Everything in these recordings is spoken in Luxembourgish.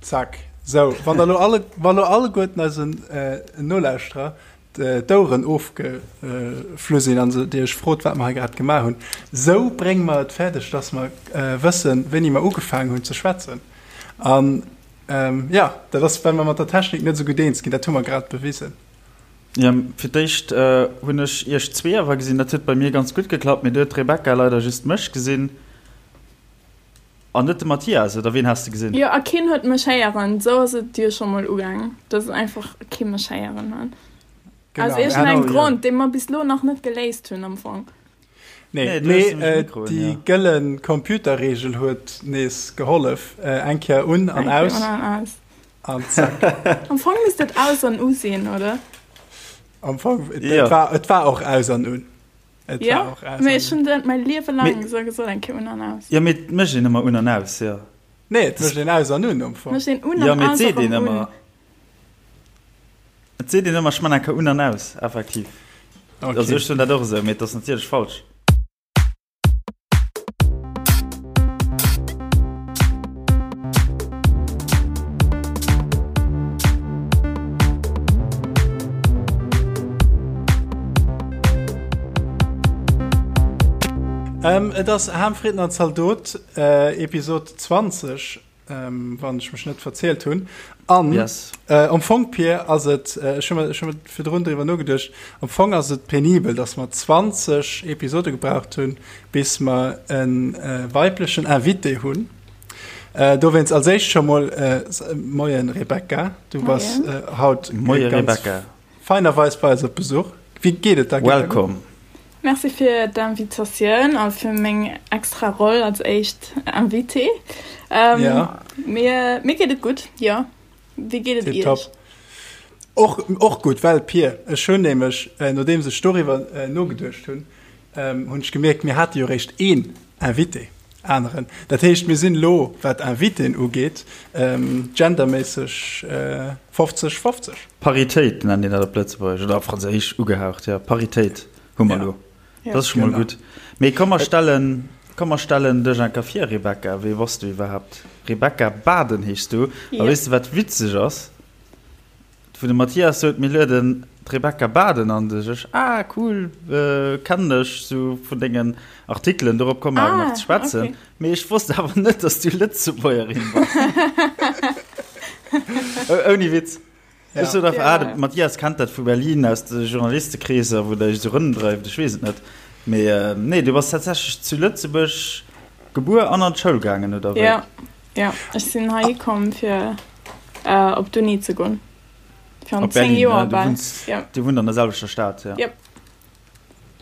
Zack. Sou, wann der lo alle, wa lo alleguerten eisen Nolauschterer d'Oueren ofgeflu sinn an se dir iech frot, wat mer hei grad gemaach hunn, sou brénge mer et fäerdeg, dass mer wëssen, wéini mer ugefaangen hunn ze schwätzen. An jo, dat ass, well mer mat der Technik net esou gutt eens ginn. Dat hu mer grad bewisen. Jo, fir d'éischt hunn ech iech zwee awer gesinn. Dat huet bei mir ganz gutt geklappt, mee du huet d'Rebecca leider just mech gesinn. An net de Mathias, oder ween has de gesinn? Jo, a keen huet mech héieren. Esou ass et jo scho mol ugaang, dass einfach kee mech héieren huet. Genau. Aus iergendengem Genau, jo. Grond, dee mer bis lo nach net geléist hunn am Fong. Nee, Nee, du hues mee nämlech Mikroen, déi jo. gëlle Computerreegel huet nees gehollef. Eng Kéier un an Eng Kéier aus un an aus. an zack. Am Fong misst et aus an u sinn, oder? Am Fong, et Jo. war, et war och aus an un. Et Ja, war och aus mee an ech hunn dat mäi Liewe laang Mee- esou gesot, eng Kéier un an aus. Jo, mee et mécht een ëmmer un an aus, jo. Nee, et mécht een aus an un am Fong. Mécht een un Jo, an mee et aus seet erëm een un. ëmmer. Et seet een ëmmer, ech man eng Kéier un an aus, effektiv. Okay. Also ech soen dat och esou, mee et ass natierlech falsch. Et ass Ham, Fritten an Zaldot, Episod 20, wann ech mech net verzielt hunn. An Yes. am Fong, Pir, ass et, ech hu mer, ech hu mer virdrun driwwer nogeduecht, am Fong ass et penibel, datt mer 20 Episode gebraucht hunn, bis mer e weiblechen Invité hunn. Dowéinst als éischt scho mol Moien Rebecca, du bass haut Moie ganz Rebecca. feinerweis bei eis op Besuch. Wéi geet et der? Geet der gutt? Welcome. Merci fir d'Invitatioun a fir meng extra Roll als éischt Invitée. Ja. Mir, mir geet et gutt, jo. Wéi geet et iech? Tipptopp. Och, och gutt, well Pir, ech hunn nämlech, nodeems ech doriwwer nogeduecht hunn, hunn ech gemierkt, mir hate jo réischt een Invité aneren. Dat heescht, mir sinn elo, wat Invitéen ugeet, genderméisseg 50, 50. Paritéit nennt een dat op Lëtzebuergesch, oder op Franséisch ugehaucht, jo, Paritéit hu mer elo. Dat ass scho mol gutt. Mee komm mer stellen, komm mer stellen dech eng Kéier vir, Rebecca. Wee bass du iwwerhaapt? Rebecca Baden heeschs du. A weess de, wat witzeg ass? Wou de Mathias sot, mir lueden d'Rebecca Baden an, du sech, ah cool, kennen ech sou vun dengen Artikelen, dorop komme mer awer nach ze schwätzen. Ah, okay. Mee ech wosst awer net, dass du Lëtzebuergerin bass. Ouni Witz. Ja. Ech sot einfach, ah, de Ja. Mathias kennt dat vu Berlin aus de Journalistekreeser, wou der iech sou rëmdreift, ech weess et net. Mee nee, du bass tatsächlech zu Lëtzebuerg gebuer an an d'Schoul gaangen, oder wéi? Ja, ja, ech sinn hei komm fir Op d'Uni ze goen. Virun Op 10 Berlin, Joer ne? Du bal. wunns, Ja. du wunnt an der selwechter Stad, ja. Yep.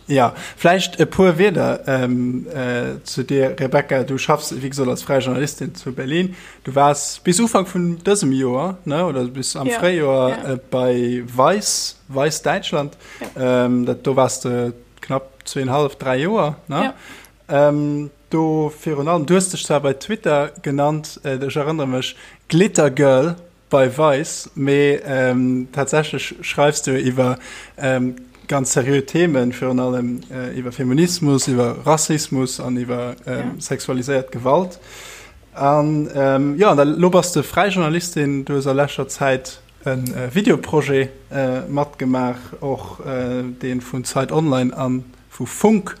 Ja, vläicht e puer Wierder ähm, äh, zu dir, Rebecca. Du schaffs, wéi gesot, als fräi Journalistin zu Berlin. Du waars bis Ufank vun dësem Joer, ne, oder bis am Ja, Fréijoer ja. äh, bei Vice, Vice Däitschland. Ja. Ähm, dat, do waars de knapp zweenhalf, dräi Joer, ne? Ja. Ähm, do virun allem, du hues dech zwar bei Twitter genannt, ech erënnere mech, Glitter Girl bei Vice, mee tatsächlech schreifs du iwwer ganz seriö Themen, virun allem iwwer Feminismus, iwwer Rassismus an iwwer sexualiséiert Gewalt. An jo, an da lo bass de fräi Journalistin, du hues a leschter Zäit e Videoprojet matgemaach, och dee vun Zeit Online an vu Funk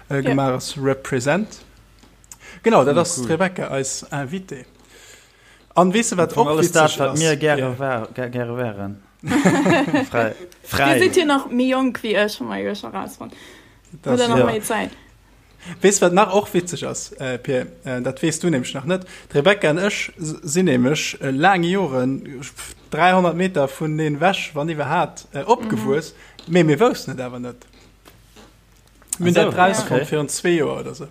gemaach ass, Represent. Genau, dat ass d'Rebecca, eis Invitée. An weess de wat och Alles dat, witzeg wat ass? mir gäre war, gäre wären. Fräi. Dir sidd jo nach méi jonk wéi ech, hu mer jo scho rausfonnt. Hutt der nach méi Zäit. Weess wat nach och witzeg ass, Pir? Dat weess du nämlech nach net. D'Rebecca an ech sinn nämlech laang Joren 300 Meter vuneneen ewech, wann iwwerhaapt, opgewuess, mee mir woussten et awer net. Mir hunn dat rausfonnt virun zwee Joer oder sou.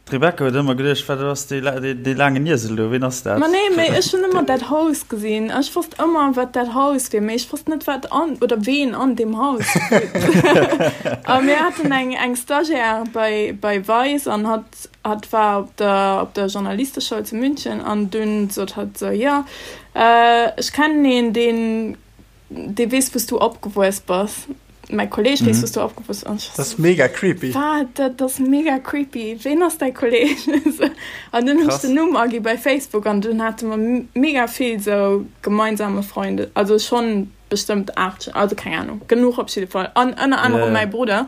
D'Rebecca huet ëmmer geduecht, wat ass dee, dee laangen Iesel do, ween ass dat? Ma nee, mee ech hunn ëmmer dat Haus gesinn. Ech wosst ëmmer, wat dat Haus wier, mee ech wosst net, wat an oder ween an deem Haus wunnt. A mir haten eng, eng Stagiaire bei, bei Vice an hatt, hatt war op der, op der Journalisteschoul zu München an dunn sot hatt sou, jo, ech kennen een, deen, dee weess, wou s du opgewuess bass. Mäi Kolleg, wéi s du do opgewuess? An ech war Dat ass mega creepy. Wat? Dat ass mega creepy. Ween ass däi Kolleg? An dunn hunn ech den Numm agi bei Facebook an dunn hate mer mega vill sou gemeinsame Freunde. Also schonn bestëmmt 8, also keng Ahnung, genuch op jidde Fall. An ënner anerem mäi Brudder.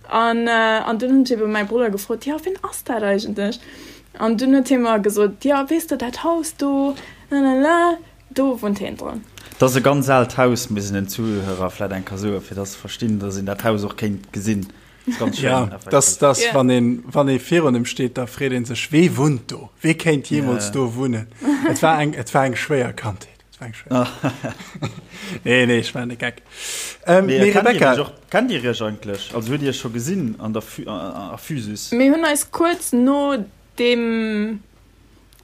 An, an dunn hunn ech ebe mäi Brudder gefrot, jo, ween ass dat eigentlech? An dunn huet hie mer gesot, jo, weess de dat Haus do, lalala. Do wunnt heen dran. Dat ass e ganz aalt Haus, misst een den Zuhörer vläit eng Kéier soen, fir dass se verstinn, dass een dat Haus och kéint gesinn. Dat ass ganz schéin, Ja, effektiv. dass, dass, Ja. wann een, wann ee virun em steet, da freet ee sech, Wee wunnt do? Wee kéint jeemools Ja. do wunnen? Et war eng, et war eng schwéier Kandheet. Et war eng schwéier. Nee, nee, ech maachen de Geck. Ähm, Mee mee kennt dir Rebecca, iech och, kennt dir iech eigentlech? Also hutt dir iech scho gesinn an der Phy-, a Physis? Mir hunn eis kuerz no deem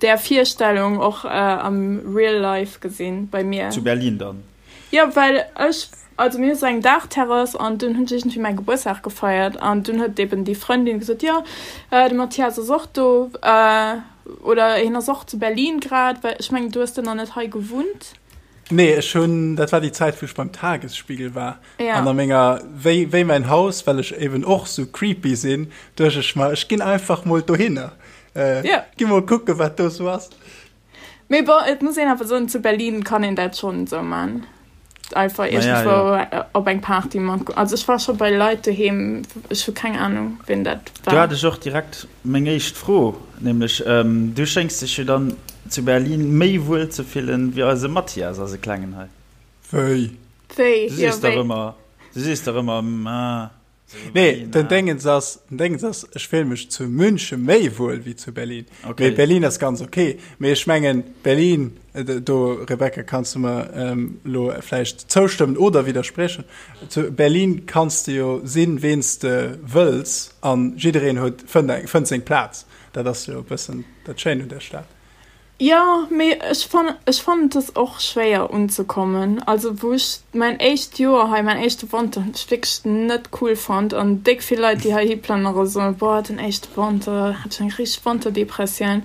där Virstellung och am real life gesinn bei mir. Zu Berlin dann? Jo, well ech, also mir hu sou eng Daachterrass an dunn hunn ech iergendwéi mäi Gebuertsdag gefeiert an dunn huet eben déi Frëndin gesot, jo de Mathias ass och do oder hien ass och zu Berlin grad, well ech mengen du hues do nach net hei gewunnt. Nee, ech hunn, dat war déi Zäit wou ech beim Tagesspiegel war an a menger, wéi wéi mäin Haus, well ech eben och sou creepy sinn, duecht ech mer, ech ginn einfach mol dohinner. Äh, ja. Gi mol kucke wat do sou ass. Mee bon, et muss een awer soen, zu Berlin kann een dat schonn esou man. Einfach iergendwou ja, ja. op eng Party mat. Also ech war scho bei Leit doheem, ech hu keng Ahnung, wien dat war. Do hat ech och direkt meng éischt Fro, nämlech ähm, du schéngs dech jo dann zu Berlin méi wuel ze fillen wéi eise Mathias, eise Klengen hei. Wéi? Wéi? Du sees dach ëmmer, du sees dach ëmmer, ah. Nee, den Déngens ass, den Déngens ass, ech fill mech zu München méi wuel wéi zu Berlin. Okay. Mee Berlin ass ganz okay. Mee ech mengen, Berlin, äh, do, Rebecca, kanns du mer ähm, lo vläicht zoustëmmen oder widdersprechen. Zu Berlin kanns du jo sinn, ween s de wëlls an jiddereen huet, fënnt eng, fënnt seng Plaz. Dat ass jo e bëssen dat Schéint un der Stad. Jo, mee ech fannen, ech fannen et ass och schwéier unzekommen. Also wou ech mäin éischt Joer hei, mäin éischte Wanter hunn ech wierklech net cool fonnt an déck vill Leit déi heihi plënnere soen, boah den éischte Wanter hat ech eng richteg Wanterdepressioun.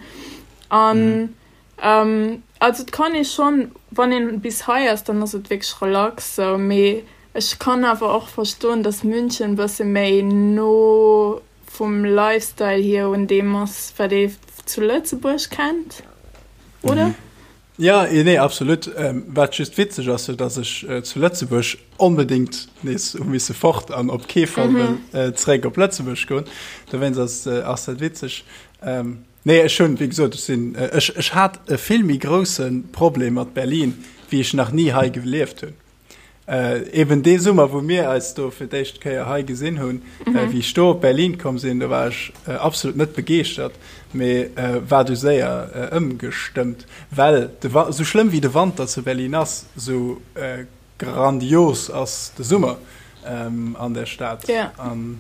An also et kann ee schonn, wann een bis hei ass, dann ass et wierklech relax sou, mee ech kann awer och verstoen, datt München e bësse méi no vum Lifestyle hier un deem ass, wat ee zu Lëtzebuerg kennt, oder? Mhm. Ja, nee, absolut. Ähm, wat just witzeg ass, jo, dass ech äh, zu Lëtzebuerg onbedingt nees hu misse fort an op kee Fall mhm. wëll äh, zeréck op Lëtzebuerg goen. Dowéinst ass, äh, ass dat witzeg. Ähm, nee, ech hunn, wéi gesot, ech sinn, äh, ech, ech hat e vill méi grousse Problem mat Berlin, wéi ech nach ni hei gelieft hunn. Eben dee Summer, wou mir eis do fir d'éischt Kéier hei gesinn hunn, wéi ech do op Berlin komm sinn, do war ech absolut net begeeschtert, mee war du séier ëmgestëmmt, well de Wa-, sou schlëmm wéi de Wanter zu Berlin ass, sou grandios ass de Summer an der Stad. An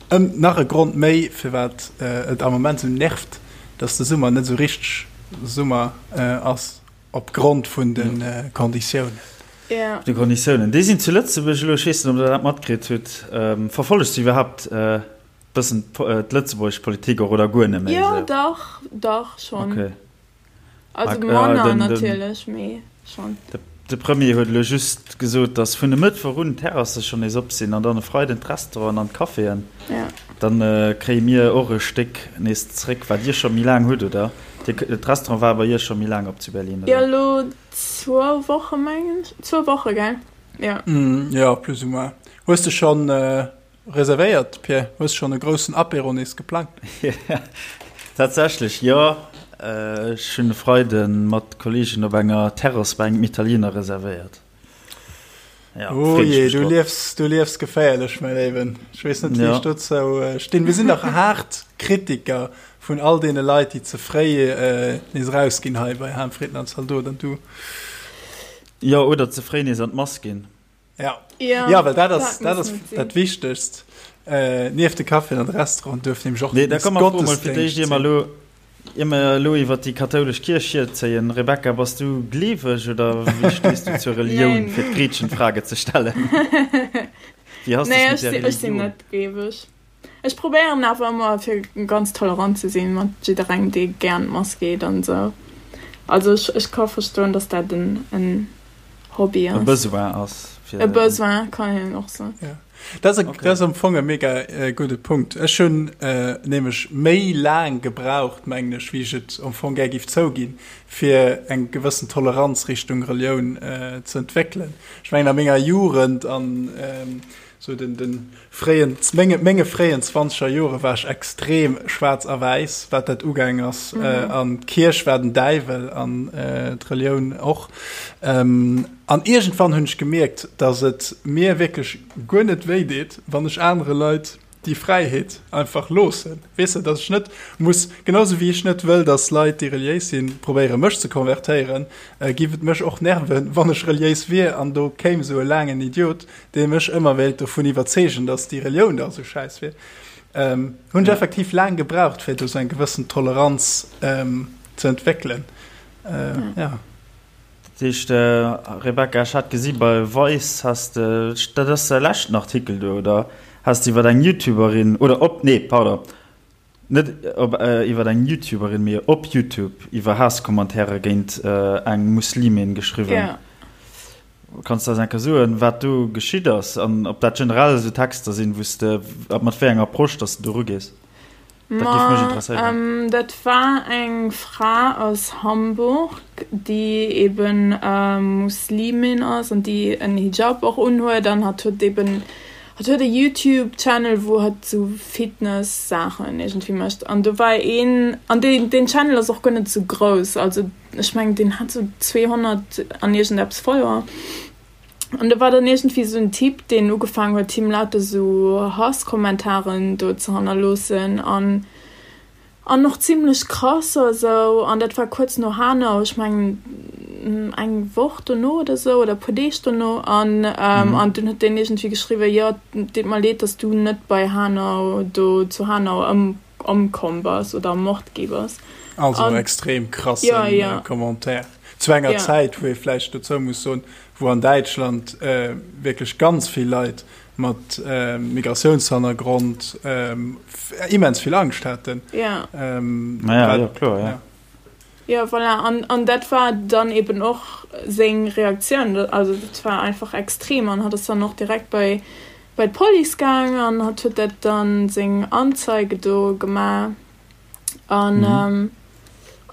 ëm, nach e Grond méi, firwat et am Moment sou nervt, dass de Summer net sou richteg Summer ass. Op Grond vun de Konditiounen. Ja. De Konditiounen. Déi sinn zu Lëtzebuerg elo, ech weess net, ob Der dat matkritt hutt. Verfollegt Dir iwwerhaapt e bëssen d'lëtzebuergesch Politik och oder guer net méi esou? Jo, dach, dach schonn. Okay. Also manner natierlech, mee schonn. De Premier huet elo just gesot, datt vun e Mëttwoch un d'Terrasse schonn nees op sinn an dann e Freiden d'Restauranten an d'Caféen. Dann kréie mir och e Stéck nees zréck, wat Dir scho méi laang hutt, oder? D'Restaurant war bei Iech scho méi laang op zu Berlin, oder? Jo, elo zwou Woche mengen ech. Zwou Woche, gell? Jo. Jo, plus ou moins. Hues de schonn Reservéiert, Pierre? Hues schonn e groussen Apéro nees geplangt? Tatsächlech jo. Ech hunn e Freide mat Kolleegen op enger Terrass bei engem Italiener reservéiert. Ja, oh je, du liefs, du liefs geféierlech, mäi Léiwen. Ech weess net, wéi ech dozou stinn. Mir sinn dach haart Kritiker vun all deene Leit, déi ze fréi nees erausginn hei bei Harmfrieden an Zaldot an du. Jo, oder ze fréi nees an d'Mass ginn. Ja. Ja, ja well dat ass dat, ass dat Wichtegst. Äh, nieft de Café an de Restaurant duerf nämlech och nee, da komm mer mol fir d'éischt ier mer lo ier mer lo iwwer déi kathoulesch Kierch hierzéien. Rebecca, bass du gleeweg oder wéi stees du zur Relioun, fir d'Gretchenfrage ze stellen? Wéi has nee, ech, ech sinn net gleeweg. Ech probéieren awer ëmmer fir ganz tolerant ze sinn mat jidderengem dee gär an d'Mass geet an esou. Also ech, ech ka verstoen, datt dat en, en. Hobby ass. E Besoin ass. E Besoin kann een och soen. Ja. Dat ass, okay. ass am Fong e mega äh, gudde Punkt. Ech hunn äh, nämlech méi laang gebraucht, mengen ech, wéi ech et am Fong gär giff zouginn, fir eng gewëssen Toleranz Richtung Relioun äh, ze entwéckelen. Ech mengen a menger Jugend an ähm, sou den, den fréien, menge, menge fréien zwanzeger Jore war ech extrem schwaarz a wäiss, wat dat ugaang ass. Mhm. Äh, an d'Kierch war den Däiwel an äh, d'Relioun och. Ähm, an iergendwann hunn ech gemierkt, dass et mir wierklech guer net wéi deet, wann ech anere Leit déi Fräiheet einfach loossen. Weess de, dass ech net muss, genau sou wéi ech net wëll, dass Leit, déi reliéis sinn, probéiere mech ze konvertéieren, äh, giff et mech och nerven, wann ech reliéis wier an do kéim sou e laangen Idiot, dee mech ëmmer wéilt dovun iwwerzeegen, dass déi Relioun da sou schäiss wier, ähm, hunn ech effektiv laang gebraucht, fir do sou eng gewëssen Toleranz ähm, ze entwéckelen. Äh, ja. Dat heescht, Rebecca, ech hat gesi bei Vice has de, dat ass däi leschten Artikel do, oder? Has de iwwer eng Youtuberin, oder op, nee, pardon, Net op iwwer eng Youtuberin, mee op Youtube iwwer Haasscommentairen géint eng Muslimin geschriwwen. Ja. Kanns de eis eng Kéier soen, wat do geschitt ass an ob dat generell esou Texter sinn, wou s de, mat wéi enger Approche dass de do erugees? Dat géif mech interesséieren. Ma dat war eng Fra aus Hamburg, déi eben Muslimin ass an déi en Hijab och unhuet an hatt huet eben Hatt huet e Youtube Channel wou hatt sou Fitness Saachen iergendwéi mécht an do war een an deen deen Channel ass och guer net sou grouss also ech mengen deen hat sou 200 an iergendeppes Follower an do war dann iergendwéi sou en Typ deen ugefaangen huet him lauter sou Hasskommentaren do ze hannerloossen an An och zimlech krass a sou. An dat war kuerz no Hanau, ech mengen eng Woch dono oder sou, oder e puer Deeg dono. An an dunn huet deen iergendwéi geschriwwen, jo, et deet mer leed, dass du net bei Hanau do zu Hanau ëm ëmkomm bass oder ermort gi bass. Also en extrem krasse ja, ja. Commentaire. Zu enger ja. Zäit, wou ee vläicht dozou muss soen, wou an Däitschland äh, wierklech ganz vill Leit mat Migratiounshannergrond immens vill Angscht haten. Ja. Naja, jo, kloer, ja. Ja, voilà. An, an dat war dann eben och seng Reaktioun. Also dat war einfach extrem an hatt ass dann och direkt bei, bei d'Police gaang an hatt huet dat dann seng Anzeige do gemaach. An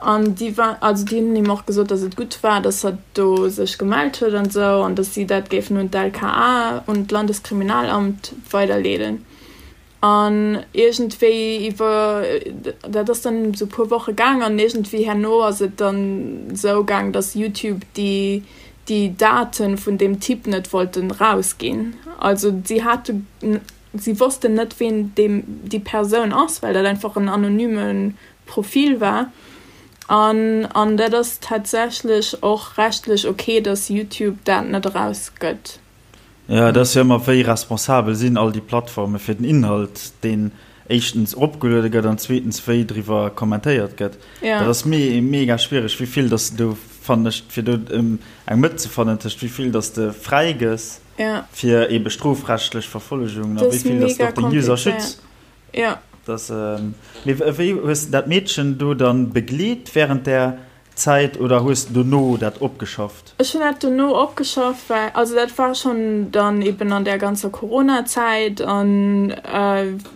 an déi war, also déi hunn him och gesot, datt et gutt war, datt hatt do sech gemellt huet an esou an datt si dat géifen un d'LKA, un d'Landeskriminalamt weiderleeden. An iergendwéi iwwer, dat ass dann esou e puer Woche gaang an iergendwéi herno ass et dann esou gaang, datt YouTube déi déi Date vun deem Typ net wollten rausginn. Also si hate Si wossten net, ween deem déi Persoun ass, well dat einfach en anonyme Profil war. An an dat ass tatsächlech och rechtlech ok, dass YouTube dat net erausgëtt. Jo, et ass jo ëmmer, wéi responsabel sinn all déi Plattforme fir den Inhalt, deen éischtens eropgeluede gëtt an zweetens wéi driwwer kommentéiert gëtt. Dat ass mega schwiereg, wéi vill dass de do, fannen ech, fir do eng Mëtt ze fannen tëscht wéi vill dass de fräigëss, Ja. Fir ebe strofrechtlech Verfollegungen a wéi vill dass de och den User schütz. Ja. Dass, mee wéi hues de dat Meedchen do dann begleet während där Zäit oder hues de dono dat opgeschafft? Ech hunn dat dono opgeschafft, well, also dat war schonn dann eben an där ganzer Corona-Zäit an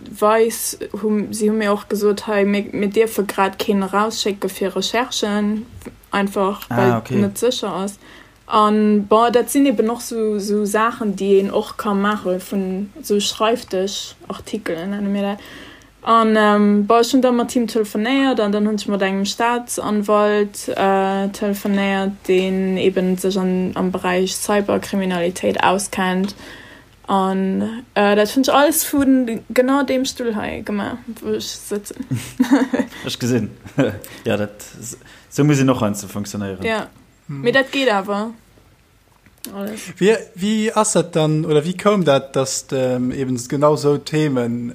Vice hu, si hu mir och gesot, hei mir, mir dierfe grad keen erausschécke fir Recherchen, einfach well et net sécher ass. An bon, dat sinn eben och sou sou Saachen, déi een och ka maache vun sou Schreifdëschartikelen, nenne mir dat. An bon, ech hunn da mat him telefonéiert an dann hunn ech mat engem Staatsanwalt telefonéiert, deen eben sech an am Beräich Cyberkriminalitéit auskennt. An dat hunn ech alles vu genau deem Stull hei gemaach, wou ech sëtzen. Ech gesinn. Jo, dat, sou muss een och heiansdo funktionéieren. Jo. Mee dat geet awer alles. Wéi, wéi ass dat dann, oder wéi koum dat, datt eben genau esou Themen,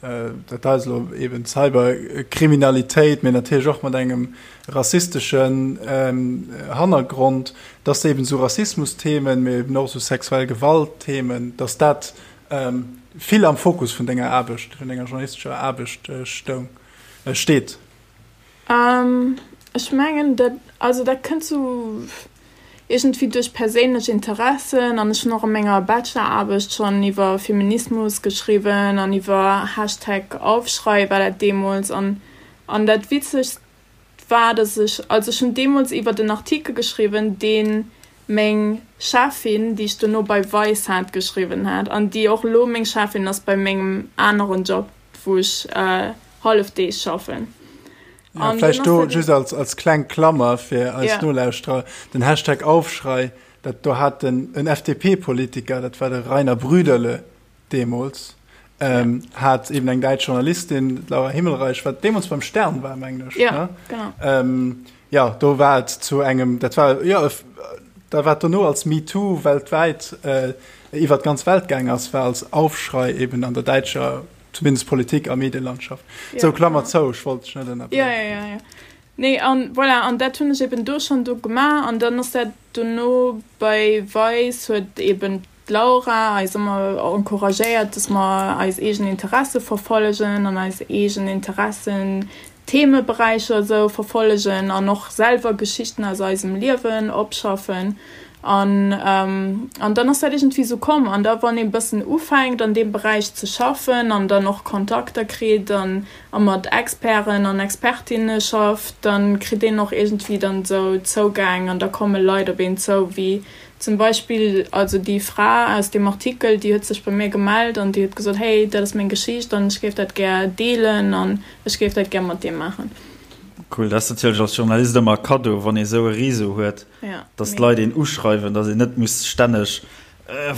dat hei ass elo eben Cyberkriminalitéit, mee natierlech och mat engem rassisteschen Hannergrond, datt eben esou Rassismusthemen, mee eben och esou sexuell Gewaltthemen, datt dat vill am Fokus vun denger Aarbecht, vun denger journalistescher Aarbecht stoung, steet? Ech mengen dat, also dat kënnt sou, iergendwéi duerch perséinlech Interessen an ech hunn och a menger Bacheloraarbecht schonn iwwer Feminismus geschriwwen an iwwer Hashtag Aufschrei war dat deemools an an dat Witzegst war, dass ech, also ech hunn deemools iwwert en Artikel geschriwwen, dee meng Cheffin, déi ech dono bei Vice hat, geschriwwen hat an déi och elo meng Cheffin ass bei mengem aneren Job, wou ech Hallefdeeg schaffen. Ja, vläicht do just als, als kleng Klammer fir eis ja. Nolauschterer, den Hashtag Aufschrei, dat do hat den en FDP-Politiker, dat war de Rainer Brüderle deemools, ähm, ja. hat eben eng däitsch Journalistin, Laura Himmelreich, wat deemools beim Stern war, mengen ech. Ja, ne? genau. Ähm, ja, do war et zu engem, dat war, ja, da war dono als MeToo weltwäit äh, iwwer d'ganz Welt gaang ass, war als Aufschrei eben an der däitscher Zumindest Politik a Medielandschaft. Ja, sou, Klammer zou, ech wollt dech net ënnerbriechen. Ja, ja, ja, ja. Nee, an voilà, an dat hunn ech eben do schonn do gemaach an dann ass dat dono bei Vice huet eben d'Laura eis ëmmer encouragéiert, dass mer eis eegen Interesse verfollegen an eis eegen Interessen, Themeberäicher esou verfollegen an och selwer Geschichten aus eisem Liewen opschaffen. An, an dann ass dat iergendwéi esou komm. An da wann ee bëssen ufänkt an deem Beräich ze schaffen an dann och Kontakter kritt an a mat Experten an Expertinne schafft, da kritt een och iergendwéi dann esou Zougäng an da komme Leit op een zou, wéi zum Beispill also déi Fra aus deem Artikel, déi huet sech bei mir gemellt an déi huet gesot, hey, dat ass meng Geschicht an ech géif dat gär deelen an ech géif dat gär mat dir maachen. Cool, dat ass natierlech als Journalist ëmmer e Kaddo, wann ee sou e Réseau huet. Ja, dass d'Leit een uschreiwen, dass een net muss stänneg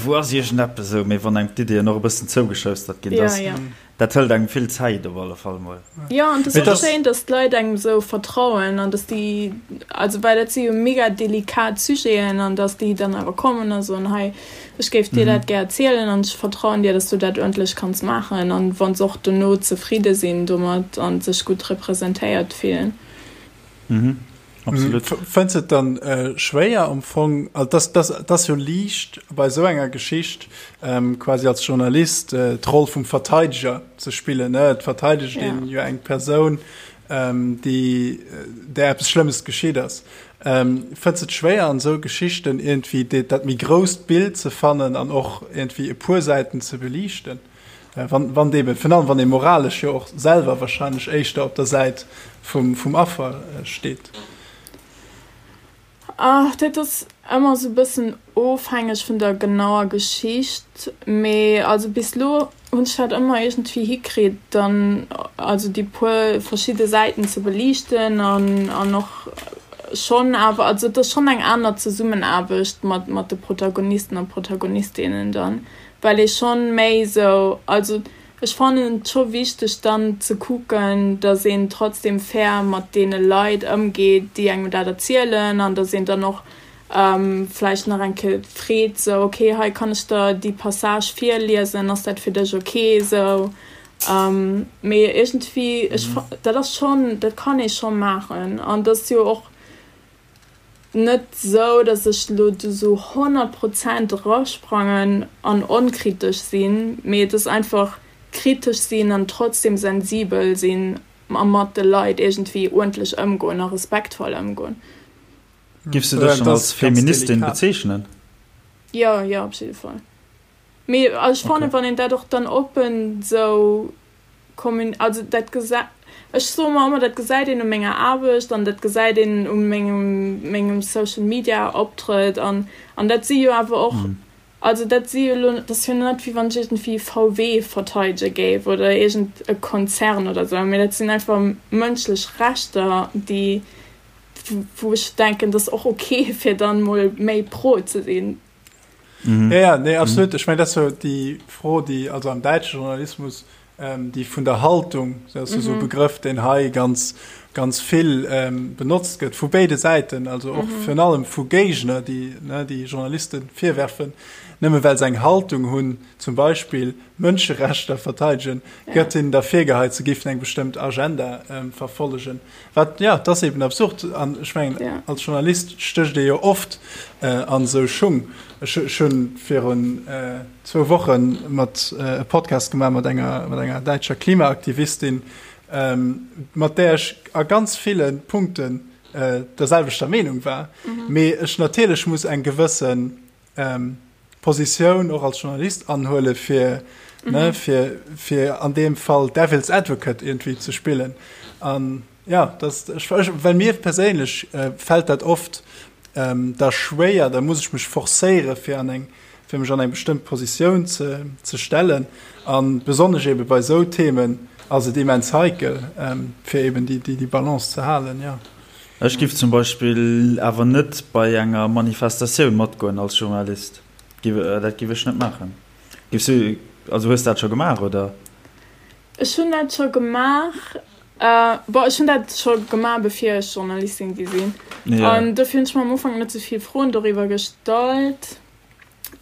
wou ass iergendeppes esou, mee wann engem d'Iddien och e bëssen zougeschoustert ginn, dass ja, ja. dat hëlt engem vill Zäit op alle Fall mol. Jo, an et ass och schéin, dass d'Leit engem esou vertrauen an dass déi, also well dat si jo mega delikat Sujeten an dass déi dann awer kommen a soen, hei ech géif dir dat gär erzielen an ech vertrauen dir, dass du dat uerdentlech kanns maachen an wa se och dono zefridde sinn domat a sech gutt representéiert fillen. Mhm. Absolut. Fënns et dann schwéier am Fong, also dass, dass, et ass jo liicht bei esou enger Geschicht quasi als Journalist d'Roll vum Verteideger ze spillen, ne? Et verteidegt een jo eng Persoun, déi, där eppes Schlëmmes geschitt ass. Fënns et schwéier an esou Geschichten iergendwéi dat méi grousst Bild ze fannen an och iergendwéi e puer Säiten ze beliichten? Wann, wann eben, virun allem wann ee moralesch jo och selwer wahrscheinlech éischter op der Säit vum, vum Affer steet. Ach, dat ass ëmmer esou e bëssen ofhängeg vun der genauer Geschicht, mee also bis elo hunn ech dat ëmmer iergendwéi hikritt, dann also déi puer verschidde Säiten ze beliichten an, an och schonn awer, also et ass schonn eng aner Zesummenaarbecht mat, mat de Protagonisten a Protagonistinnen dann. well ee schonn méi esou, also ech fannen et scho wichteg dann ze kucken, datt een trotzdem fair mat deene Leit ëmgeet, déi engem dat erzielen an datt een dann och vläicht nach eng Kéier freet esou, ok hei kann ech der déi Passage virliesen, ass dat fir dech ok esou? Mee iergendwéi ech, dat ass schonn, dat kann ee scho maachen an dat ass jo och net sou, dass ech lo do sou 100 Prozent erasprangen an onkritesch sinn, mee et ass einfach kritesch sinn an trotzdem sensibel sinn a mat de Leit iergendwéi uerdentlech ëmgoen a respektvoll ëmgoen. Giffs du dech dann als Feministin bezeechnen? Jo, jo, op jidde Fall. Mee ech fannen, wann een dat och dann oppen sou Kommun also dat gesa ech soe mer ëmmer, dat gesäit een u menger Aarbecht an dat gesäit een u mengem mengem Social Media Optrëtt an an dat si jo awer och also dat si jo elo dat ass jo net wéi wann ech iergendwéi VW verteidege géif oder iergend e Konzern oder esou, mee dat sinn einfach mënschlech Rechter déi wou ech denken, dat ass och ok fir dann mol méi pro ze sinn. Mhm. Ja, ja, nee, absolut. Mhm. Ech mein, dat so déi Fro, déi also am däitsche Journalismus ähm, déi vun der Haltung, dat ass mhm. so Begrëff, den hei ganz ganz vill ähm, benotzt gëtt vu béide Säiten, also och mhm. virun allem vu Géigner, déi ne, déi Journalisten virwerfen, nëmme well se eng Haltung hunn, zum Beispill Mënscherechter verteidegen, ja. gëtt hinnen da virgeheit, se géifen eng bestëmmt Agenda ähm, verfollegen. Wat, ja, dat ass eben absurd. An ech mengen, ja. als Journalist stécht ee jo oft äh, an esou Schung. Ech, ech hunn virun äh, zwou Woche mat äh, e Podcast gemaach mat enger, mat enger däitscher Klimaaktivistin, ähm, mat där ech a ganz ville Punkten. der selwechter Meenung war. Mee ech natierlech muss eng gewëssen Positioun och als Journalist anhuele fir, ne, fir, fir an deem Fall Devil's Advocate iergendwéi ze spillen. An ja, dat, ech, ech, well mir perséinlech fält dat oft da schwéier, da muss ech mech forcéiere fir an eng, fir mech an eng bestëmmt Positioun ze, ze stellen. A besonnesch ebe bei esou Themen ass et immens heikel, fir eben déi, déi, déi Balance ze halen, jo. Ech giff zum Beispill awer net bei enger Manifestatioun matgoen als Journalist. Dat giff ech net maachen. Giffs du, also hues dat scho gemaach, oder? Ech hunn dat scho gemaach. Bon, ech hunn dat scho gemaach bevir ech Journalistin gi sinn. An dofir hunn ech mer am Ufank net sou vill Froen doriwwer gestallt.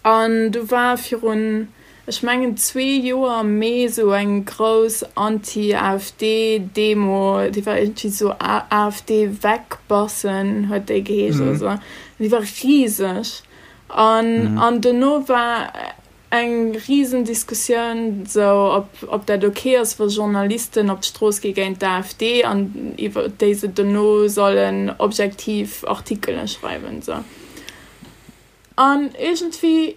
An du war virun, ech mengen zwee Joer am Mee esou eng grouss Anti-AfD-Demo, déi war iergendwéi esou AfD weg Bassen huet déi geheescht oder esou. An déi war riseg. An, an dono war eng risen Diskussioun esou, ob, ob dat ok ass, wa Journalisten op d'Strooss gi géint d'AfD an iwwer déi se dono sollen objektiv Artikele schreiwen esou. An iergendwéi,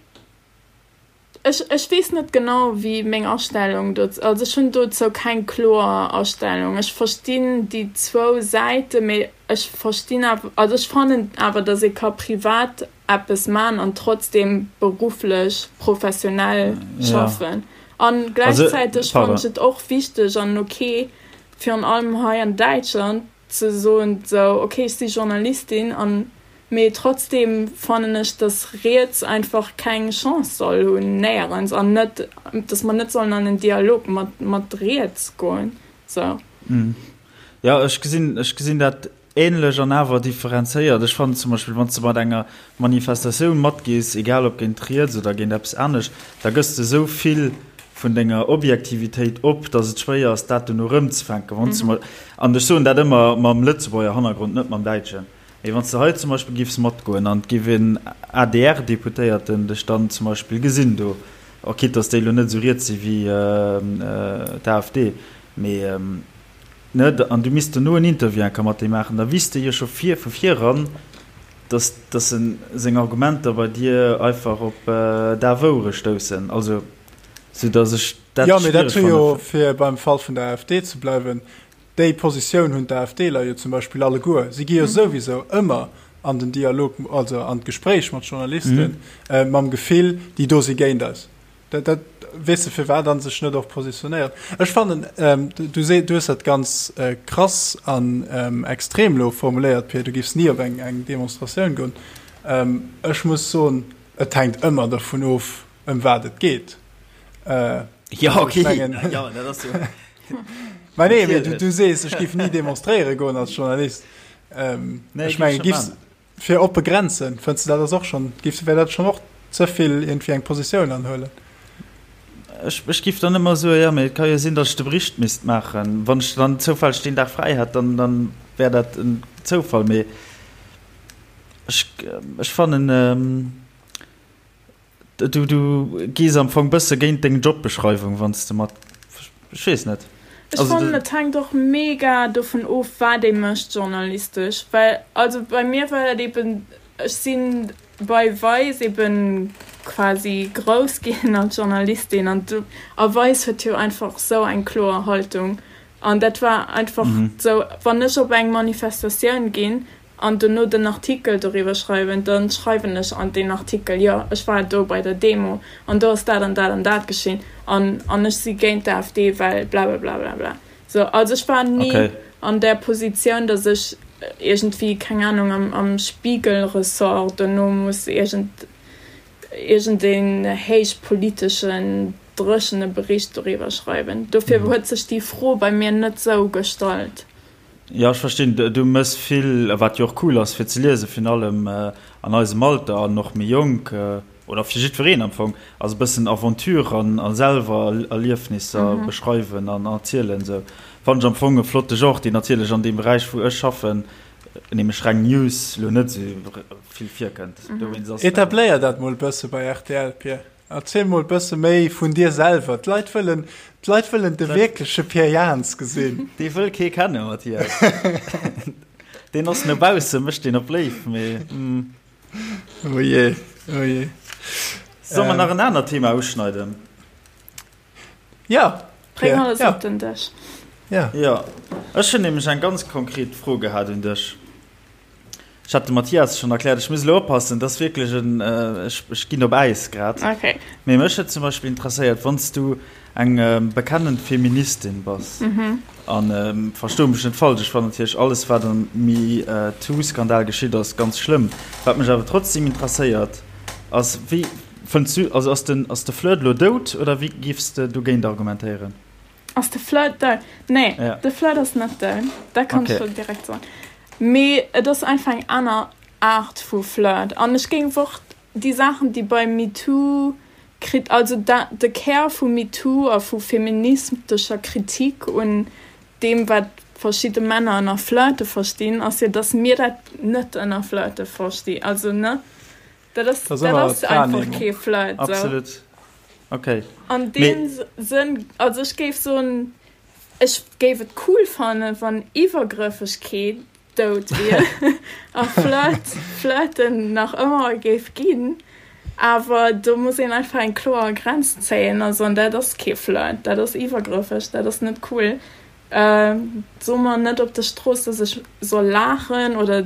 ech, ech weess net genau, wéi meng Astellung dozou, also ech hunn dozou keng kloer Astellung. Ech verstinn déi zwou Säiten, mee ech verstinn awer, also ech fannen awer, datt ee ka privat eppes man an trotzdem berufflech professionell schaffen. An gläichzäiteg fannen ech et och wichteg an ok, virun allem hei an Däitschland, ze soen sou ok ech si Journalistin an mee trotzdem fannen ech dass riets einfach keng Chance soll hunn néierens an net dass mer net sollen an en Dialog mat mat riets goen sou. Jo ech gesinn ech gesinn dat ähnlech an awer differenzéiert. Ech fannen zum Beispill wann s de mat enger Manifestatioun matgees, egal ob géint riets oder géint eppes anescht, da gëss de sou vill vun denger Objektivitéit op, datt et schwéier ass, dat dono erëmzefänken. Wann s de mol, an ech soen dat ëmmer mam Lëtzebuerger Hannergrond, net mam däitschen, mee wann s de hei zum Beispill giffs matgoen an et giff en ADR-Deputéierten dech dann zum Beispill gesinn do, och quitte datt déi elo net esou riets si wéi d'AfD, mee ne, an du misst dono en Interview enker mat deem maachen, da wisst de jo scho vir vu viran, dass dass en seng Argumenter bei dir einfach op daf Ouere stoussen. Also sou dass ech dat Jo, mee dat schwiereg hu jo, fanne. fir beim Fall vun der AfD ze bleiwen, déi Positioun hunn d'AfDler jo zum Beispill alleguer. Si gi jo souwisou ëmmer an den Dialog, also an d'Gespréich mat Journalisten, mam Gefill, déi do si géint eis. Dat, dat, weess de, firwat an sech net och positionéiert. Ech fannen, ähm, du, du, du hues dat ganz äh, krass an ähm, extrem lo formuléiert, Pir, du giffs ni op eng, eng Demonstratioun goen. Ähm, ech muss soen, et hänkt ëmmer dervun of, ëm wat et geet. Äh, ja, okay. Mengen, ja, dat ass jo. Mä nee, mee du, du sees, ech giff ni demonstréiere goen als Journalist. Ähm, nee, ech menge, giffs, Fir oppe Grenzen, fënns de dat ass och schonn, géif, wär dat schonn och ze vill iergendwéi eng Positioun anhuelen? Ech, ech géif dann ëmmer soen, jo, mee et ka jo sinn, datt ech de Bericht misst maachen. Wann ech dann zoufälleg deen Dag fräi hätt, dann, dann wär dat en Zoufall. Mee ech, ech fannen, Du, du gees am Fong bësse géint deng Jobbeschreiwung, wann s de mat, ech weess net. Ech fannen, et hänkt och mega dovun of, wat ee mécht journalistesch, well also bei mir war dat eben, ech si bei Vice eben quasi grouss ginn als Journalistin an du, a Vice huet jo einfach sou eng kloer Haltung an dat war einfach sou, wann ech op eng Manifestatioun ginn, an dono den Artikel doriwwer schreiwen, da schreiwen ech an deen Artikel, jo, ech war do bei der Demo an do ass dat an dat an dat geschinn an an ech si géint d'AfD, well blablablablabla. Sou, also ech war ni okay. an där Positioun, datt ech iergendwéi, keng Ahnung, am, am Spiegel-Ressort dono muss iergend, iergendeen héichpoliteschen, dréchene Bericht doriwwer schreiwen. Dofir huet sech déi Fro bei mir net sou gestallt. Jo, ech verstinn. Du mëss vill, wat jo och cool ass fir ze liesen, virun allem an eisem Alter an och méi jonk, oder fir jiddwereen am Fong, ass e bëssen Aventure an a selwer Erliefnisser beschreiwen an erzielen. Esou fannen ech am Fong e flotte Genre, deen natierlech an deem Beräich, wou ech schaffen, nämlech reng News, elo net esou vill virkënnt. Dowéinst ass. Etabléier dat mol e bësse bei rtl, Pir. Erziel mol bësse méi vun dir selwer. D'Leit wëllen, d'Leit wëllen de wierkleche Pierre Jans gesinn. Dee wëll kee kennen, Mathias. Deen ass no bausse, mécht deen op léif, mee. Oh je, oh je. Solle mer nach en anert Thema uschneiden? Ja. Bréng alles op den Dësch. Ja. Jo, ech hunn nämlech eng ganz konkret Fro gehat un dech. Ech hat dem Mathias schonn erkläert, ech muss elo oppassen, dat ass wierklech en, ech, ech ginn op Äis grad. Okay. Mee mech huet zum Beispill interesséiert, wann s du eng bekennend Feministin bass, an versto mech net falsch, ech fannen natierlech alles, wat am MeToo-Skandal geschitt ass, ganz schlëmm. Wat mech awer trotzdem interesséiert, ass, wéi fënns du, also ass den, ass de Flirt elo dout oder wéi géifs de dogéint argumentéieren? Ass de Flirt dout? Nee, ja. de Flirt ass net dout. Dat kann okay. ech direkt soen. Mee et ass einfach eng aner Aart vu Flirt. An ech géing och déi Saachen, déi bei MeToo krit also da, de Kär vu MeToo a vu feministescher Kritik un deem, wat verschidde Männer ënner Flirte verstinn, ass jo, dass mir dat net ënner Flirte verstinn. Also, ne? Dat ass, dat ass einfach kee Flirt. So. Absolut. Okay. An deem Sënn, also ech géif soen, ech géif et cool fannen, wann Iwwergrëffegkeet dout wier a Flirt, Flirten nach ëmmer géif ginn. Awer do muss een einfach eng kloer Grenz zéien. Also an dat ass kee Flirt, dat ass iwwergrëffeg, dat ass net cool. So mer net op der Strooss, dass ech soll laachen oder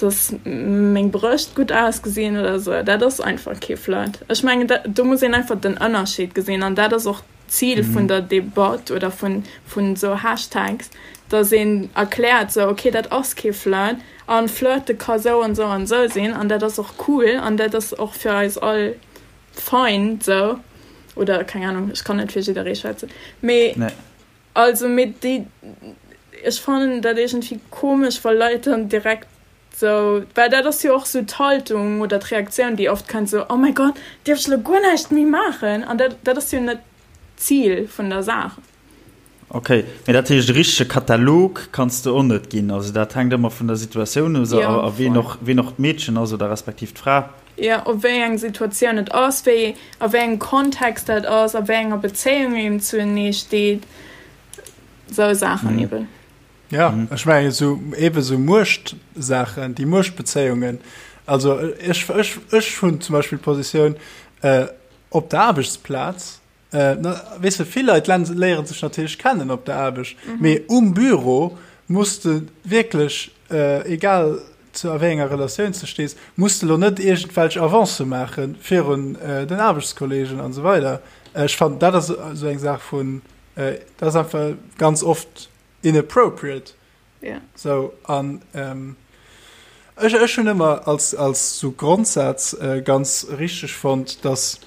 dass meng Brëscht gutt ausgesinn oder sou. Dat ass einfach kee Flirt. Ech mengen, do muss een einfach den Ënnerscheed gesinn an dat ass och d'Zil vun der Debatt oder vun vun sou Hashtags, dass een erkläert sou, okay, dat ass kee Flirt an Flirte ka sou an sou an sou sinn an dat ass och cool an dat ass och fir eis all fein sou oder keng Ahnung, ech kann net fir jidderee schwätzen, mee. Also mee déi, ech fannen dat iergendwéi komesch wa Leit dann direkt sou, well dat ass jo och sou d'Haltung oder d'Reaktioun déi oft kënnt, sou oh mäi Gott, dierf ech elo guer näischt méi maachen? An dat dat ass jo net d'Zil vun der Saach. Ok, mee dat heescht e richtege Katalog kanns de och net ginn, also dat hänkt ëmmer vun der Situatioun of a ween och ween och d'Meedchen ass oder respektiv d'Fra. Jo, op wéi eng Situatioun et ass, wéi, a wéi engem Kontext dat ass, a wéi enger Bezéiung een zuenee steet, sou Saachen eben. Ja, ech mengen esou, eben esou Muechtsaachen, déi Muechtbezéiungen. Also ech, ech, ech hunn zum Beispill d'Positioun, op der Aarbechtsplaz, Weess de, vill Leit léiere sech natierlech kennen op der Aarbecht, mee um Büro muss de wierklech, egal zu a wéi enger Relatioun s de stees, muss de elo net iergendwelch Avancë maache virun den Aarbechtskollegen an esou weider. Ech fannen, dat ass esou eng Saach vun, dat ass einfach ganz oft inappropriate. Ja. Sou, an ech, ech hunn ëmmer als, als sou Grondsaz ganz richteg fonnt, dass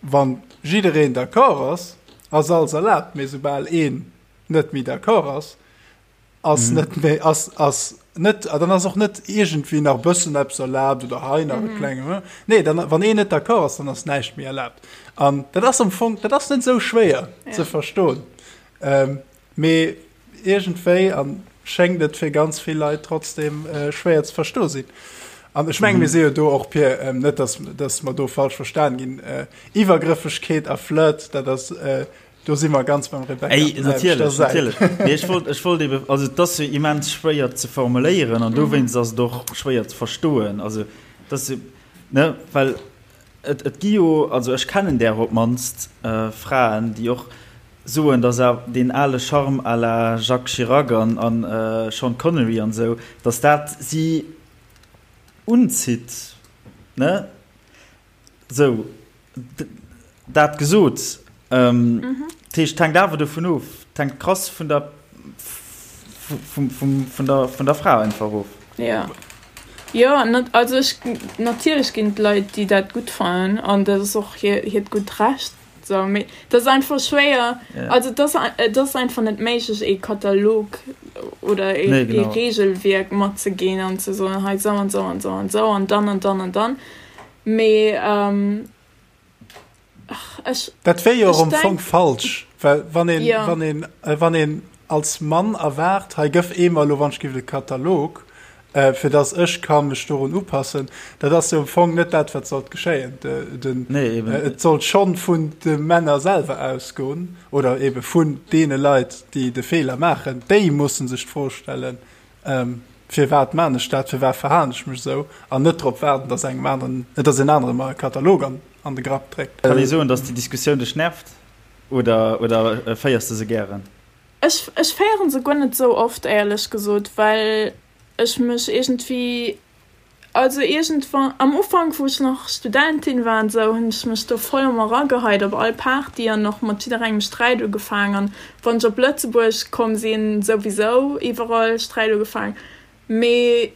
wann jiddereen d'accord ass, ass alles erlaabt, mee soubal een net méi d'accord ass, ass net méi, ass, ass net, dann ass och net iergendwéi nach e bëssen eppes erlaabt oder hei nach e klenge, nee, dann, wann een net d'accord ass, dann ass näischt méi erlaabt. An dat ass am Fong, dat ass net esou schwéier ze verstoen. Mee iergendwéi an schéngt et fir ganz vill Leit trotzdem schwéier ze verstoe sinn. An ech menge mir si jo do och, Pir, net datt datt mer do falsch verstan ginn, Iwwergrëffegkeet a Flirt, dat ass, do si mer ganz beim Rebecca op der selwechter Säit. Natierlech, natierlech. Mee ech wollt, ech wollt ebe, also et ass jo immens schwéier ze formuléieren an dowéinst ass et och schwéier ze verstoen. Also et ass jo, ne, well et, et gi jo, also ech kennen där op d'mannst Fraen, déi och soen, dass awer deen ale Charme à la Jacques Chirac an an Sean Connery an esou, dass dat si unzitt, ne? Sou, dat gesot, dat heescht, et hänkt awer dovun of, et hänkt krass vun der, vum, vum, vun der, vun der Fra einfach of. Jo, jo, also ech, natierlech ginn et Leit, déi dat gutt fannen an dat ass och hiert gutt Recht. So, mee dat ass einfach schwéier. Yeah. Also dat ass, et ass einfach net méiglech ee Katalog oder ee, nee, genau. ee Regelwierk matzeginn an ze soen, hei sou an sou an sou an sou an dann an dann an dann. Mee ähm, ach, ech. Dat wär jo och am Fong falsch, well wann een, ja. wann een, äh, wann een als Mann erwaart, hei gëff ee mer elo wann ech giff de Katalog, fir dass ech ka mech dorun upassen, dat ass jo am Fong net dat, wat sollt geschéien. Den, nee, eben. Et sollt schonn vun de Männer selwer ausgoen oder ebe vun deene Leit, déi de Feeler maachen. Déi mussen sech d'Fro stellen. Firwat maan ech dat, firwat verhalen ech mech esou, an net drop waarden, dass engem aneren, dass een anere mer e Katalog an an de Grapp dréckt. Kann ee soen, dass déi Diskussioun dech nervt oder oder féiers de se gären? Ech ech féieren se guer net esou oft éierlech gesot, well ech mech iergendwéi Also iergendwann, am Ufank wou ech nach Studentin war an esou, hunn ech mech do voll ëmmer erageheit op all Party an och mat jidderengem Sträit ugefaang an wann ech op Lëtzebuerg komm sinn, souwisou iwwerall Sträit ugefaang. Mee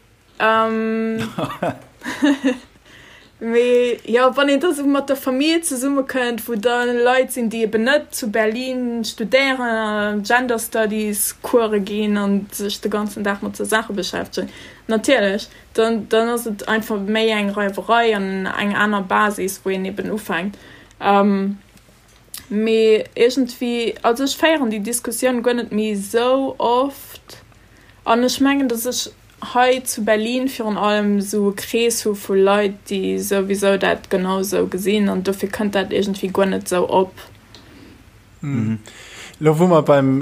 Mee jo, wann een da sou mat der Famill zesummekënnt, wou da Leit sinn, déi eben net zu Berlin studéieren a Gender Studies Course ginn a sech de ganzen Dag mat sou Saache beschäftegen, natierlech, dann, dann ass et einfach méi eng Reiwerei an eng aner Basis, wou een eben ufänkt. Mee iergendwéi, also ech féieren déi Diskussioun guer net méi sou oft an ech mengen, datt ech hei zu Berlin virun allem esou e Krees hu vu Leit, déi souwisou dat genau esou gesinn an dofir kënnt dat iergendwéi guer net esou op. Elo wou mer beim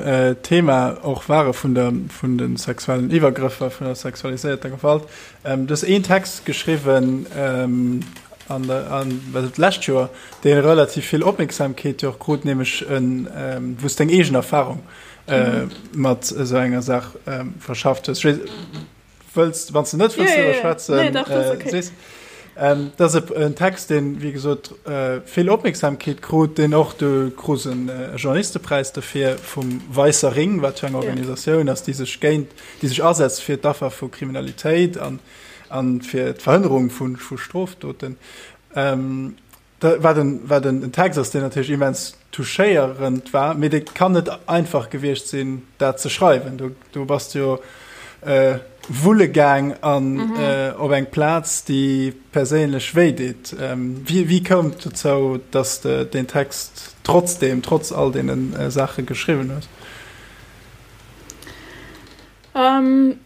Thema och ware vun der, vun de sexuellen Iwwergrëffer, vun der sexualiséierter Gewalt, Du hues een Text geschriwwen an der, an, wat d'lescht Joer, dee relativ vill Opmierksamkeet jo och krut, nämlech en, wou s deng eegen Erfarung mat esou enger Saach verschafft hues. Ech weess, wëlls, wann s de net wëlls driwwer schwätzen, sees. Dat ass en Text, deen, wéi gesot, vill Opmierksamkeet krut, deen och, du krus e Journalistepräis dofir vum Weißer Ring, wat jo eng Organisatioun ass, déi sech géint, déi sech asetzt fir d'Affer vu Kriminalitéit an fir d'Verhënnerung vu Strofdoten. Wat en, wat en Text ass, deen natierlech immens touchéierend war, mee dee kann net einfach gewiescht sinn, dat ze schreiwen. Do, do bass de jo wulle gaang an op eng Plaz, déi perséinlech wéi deet. Wéi, wéi koum et dozou, dass de deen Text trotzdeem, trotz all deene Saache geschriwwen hues?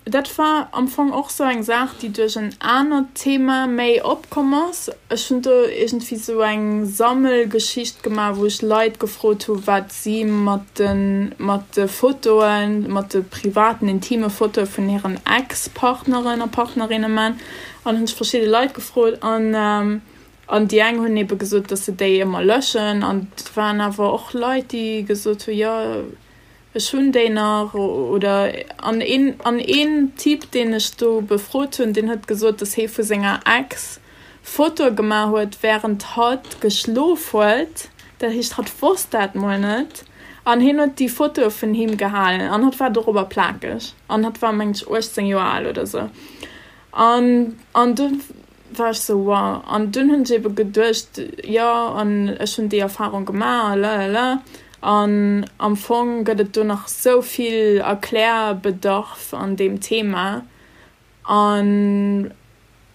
Dat war am Fong och sou eng Saach, déi duerch en anert Thema méi opkomm ass. Ech hunn do iergendwéi sou eng Sammelgeschicht gemaach, wou ech Leit gefrot hu wat si mat de mat de Fotoen, mat de privaten, intime Fotoe vun hiren Ex-Partneren a Partnerinne man. An hunn ech verschidde Leit gefrot an an déi eng hunn ebe gesot, datt se déi ëmmer löschen an et waren awer och Leit, déi gesot hu jo, Ech hunn déi nach, oder an een, an een Typ, deen ech do befrot hunn, deen huet gesot, dass hee vu senger Ex Fotoe gemaach huet, wärend hatt geschlof huet. Dat heescht, hatt wosst dat mol net. An hien huet déi Fotoe vun him gehalen an hatt war dorobber plakeg. An hatt war, mengen ech, 18 Joer al oder sou. An, an du war ech sou, wow. An dunn hunn ech ebe geduecht, jo, an ech hunn déi Erfarung gemaach a lalala. An am Fong gëtt et do nach sou vill Erklärbedarf an deem Thema. An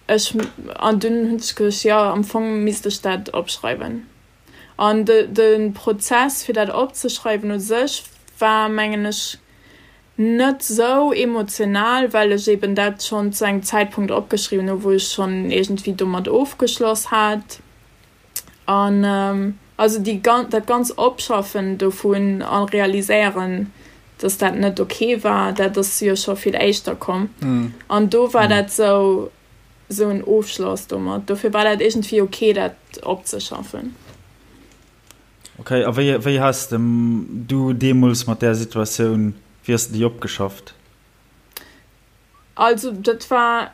ech, an dunn hunn ech geduecht, jo, am Fong misst ech dat opschreiwen. An de, de Prozess, fir dat opzeschreiwen u sech war, mengen ech, Net sou emotional, well ech eben dat schonn zu engem Zäitpunkt opgeschriwwen hu wou ech schonn iergendwéi domat ofgeschloss hat. An also déi dat ganz Opschaffen dovun a realiséieren, dass dat net ok war, dat ass jo scho vill éischter komm. An do war dat sou sou en Ofschloss domat. Dofir war dat iergendwéi ok dat opzeschaffen. Ok, a wéi, wéi has de du deemools mat där Situatioun, wéi has de déi opgeschafft? Also dat war,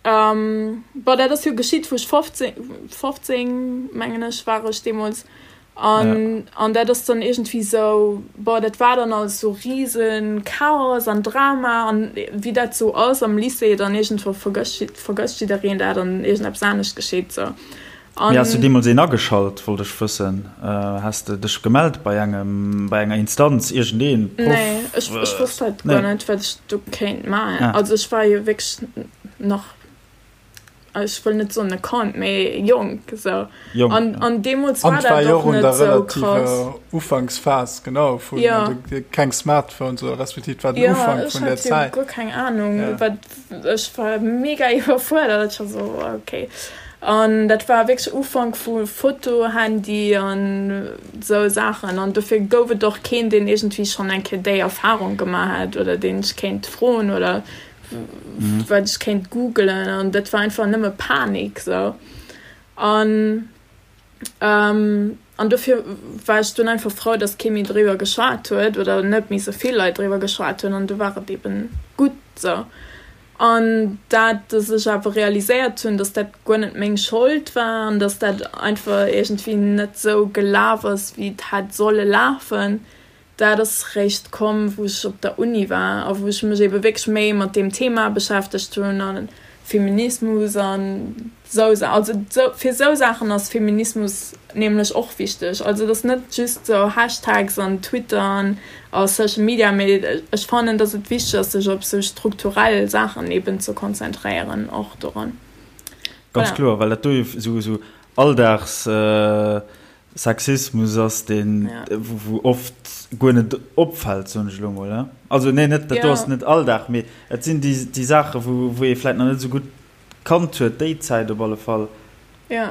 bon dat ass jo geschitt wou ech 15, 15 mengen ech war ech deemools, an, an dat ass dann iergendwéi sou, bon dat war dann alles sou rise Chaos an Drama an wéi dat sou ass am Lycée, dann iergendwou vergësst, vergësst jiddereen dat an iergendeppes anescht geschitt sou. Mee has du deemools een ageschalt, wollt ech wëssen. Has de dech gemellt bei engem, bei enger Instanz, iergendeen Proff? Nee, ech, ech wosst halt guer net, wat ech do kéint maachen. Also ech war jo wierklech nach, ech wëll net soen e Kand, mee jonk esou. Jonk, ja. An, an deemools war dat och net esou krass. An et war jo och un der relativer Ufanksphas, genau, vun, also keng Smartphones oder respektiv et war den Ufank vun där Zäit. Jo, ech hat jo guer keng Anung, wat Ech war mega iwwerfuerdert, ech war sou ok. An dat war wierklech Ufank vu Fotohandy an sou Saachen an dofir gouf et och keen, deen iergendwéi schonn eng Kéier déi Erfarung gemaach hätt oder deen ech kéint froen oder. wat ech kéint googelen an dat war einfach nëmme Panik sou an an dofir war ech dunn einfach frou, datt kee méi driwwer geschwat huet oder net méi sou vill Leit driwwer geschwat hunn an du war et eben gutt sou. An dat, datt ech awer realiséiert hunn, datt dat guer net meng Schold war an datt dat einfach iergendwéi net sou gelaf ass, wéi et hätt solle lafen, dat ass réischt komm, wou ech op der Uni war a wou ech mech ebe wierklech méi mat deem Thema beschäftegt hunn a Feminismus an sou Sa also sou fir sou Saachen ass Feminismus nämlech och wichteg. Also et ass net just sou Hashtags an Twitter an a Social Media, mee ech fannen, datt et wichteg ass, sech op sou strukturell Saachen eben ze konzentréieren och doran. Ganz Voilà. kloer, well dat do jo sou sou Alldags Sexismus ass, deen wou oft guer net opfält, soen ech elo mol. Also nee, net dat do ass net Alldag, mee et sinn déi déi Saache wou wou ee vläit nach net esou gutt kannt huet, déi Zäit op alle Fall. Jo,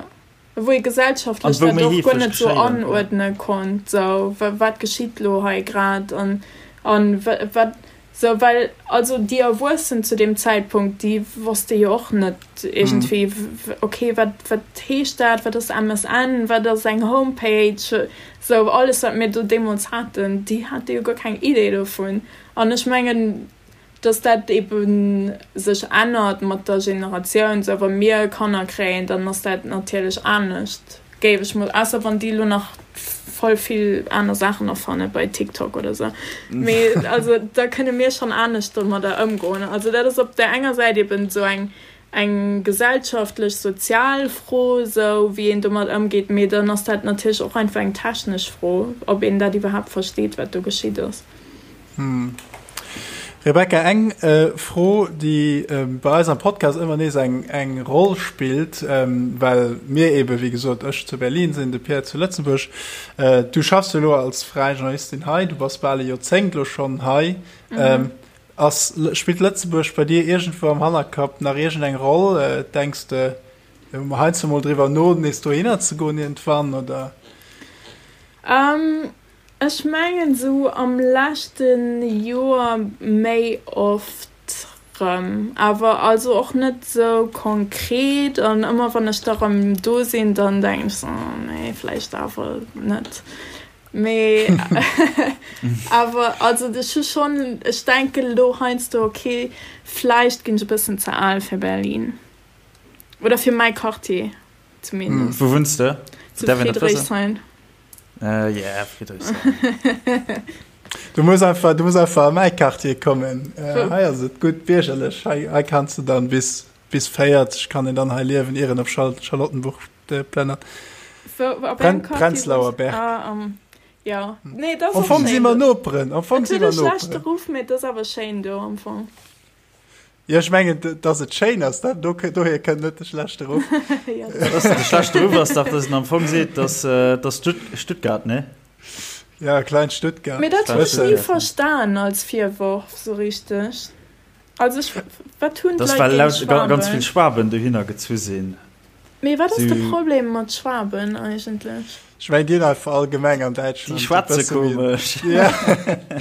wou ee gesellschaftlech dat och guer net esou anuerdne konnt, sou wat geschitt elo hei grad an an wat Sou, well also déi Erwuessen zu deem Zäitpunkt, déi wosste jo och net iergendwéi, okay, wat, wat heescht dat, wat ass MSN, wat ass eng Homepage, sou alles, wat mir do deemools haten, déi hate jo guer keng Idee dovun. An ech mengen, dass dat ebe sech ännert mat der Generatioun, sou wa mir Kanner kréien, dann ass dat natierlech anescht. Géif ech mol, ausser wann déi elo nach voll vill aner Saachen erfanne bei TikTok oder sou. Mee also da kënne mir schonn anescht domadder ëmgoen. Also dat ass op där enger Säit eben esou eng eng gesellschaftlech, sozial Fro, sou wéi een domat ëmgeet, mee dann ass dat natierlech och einfach eng technesch Fro, ob een dat iwwerhaapt versteet, wat do geschitt ass. Rebecca, eng Fro, déi bei eis am Podcast ëmmer nees eng Roll spillt, well mir eebe wéi gesot, ech zu Berlin sinn, de Pierre zu Lëtzebuerg. Du schaffs jo elo als fräi Journalistin hei, du bass bal e Joerzéngt elo schonn hei. Ass, spillt Lëtzebuerg bei dir iergendwou am Hannerkapp nach iergendeng Roll? Denks de heiansdo mol driwwer no, nees dohinner ze goen iergendwann, oder? Ech mengen sou am leschte Joer méi oft rëm, awer also och net sou konkret an ëmmer wann ech da rëm do sinn, dann denken ech sou, oh nee, vläicht awer net. Mee awer also ech hu schonn, ech denken elo heiansdo, okay, vläicht ginn ech e bëssen ze al fir Berlin oder fir mäi Quartier zumindest. Wou wunns de? Zu Friedrichshain. Äh, yeah, Friedrichshain. Du muss einfach, du muss einfach an mäi Quartier kommen. Äh, hei ass et gutt biergerlech. Hei, hei kanns du dann bis, bis 40 kann een dann hei liewen, ier en op Schal Charlottenburg äh, plënnert. Wou, op Pren engem Quartier Prenzlauer wunns? Berg. Ah, um, ja. Nee, dat ass Am och Fong si schéin mer do. Noperen. Am Fong Et si huet mer e schlechte Noperen. Ruff, mee et ass awer schéin do am Fong. Jo, ech mengen, dass et schéin ass, dat, do, dohier kënnt net de schlechte Ruff. Ja, dat ass de schlechte Ruff ass dach, dass en am Fong seet, dass, dass Stuttgart, ne? Ja, klein Stuttgart. Mee dat hunn ech ni verstan als Virworf sou richteg. Also ech, wat hunn d'Leit géint Schwaben? Well ganz vill Schwaben dohinner gezu sinn. Mee wat ass de Problem mat Schwaben eigentlech? Ech mengen, déi hunn einfach allgemeng an Däitschland Déi schwätze komesch. Ja.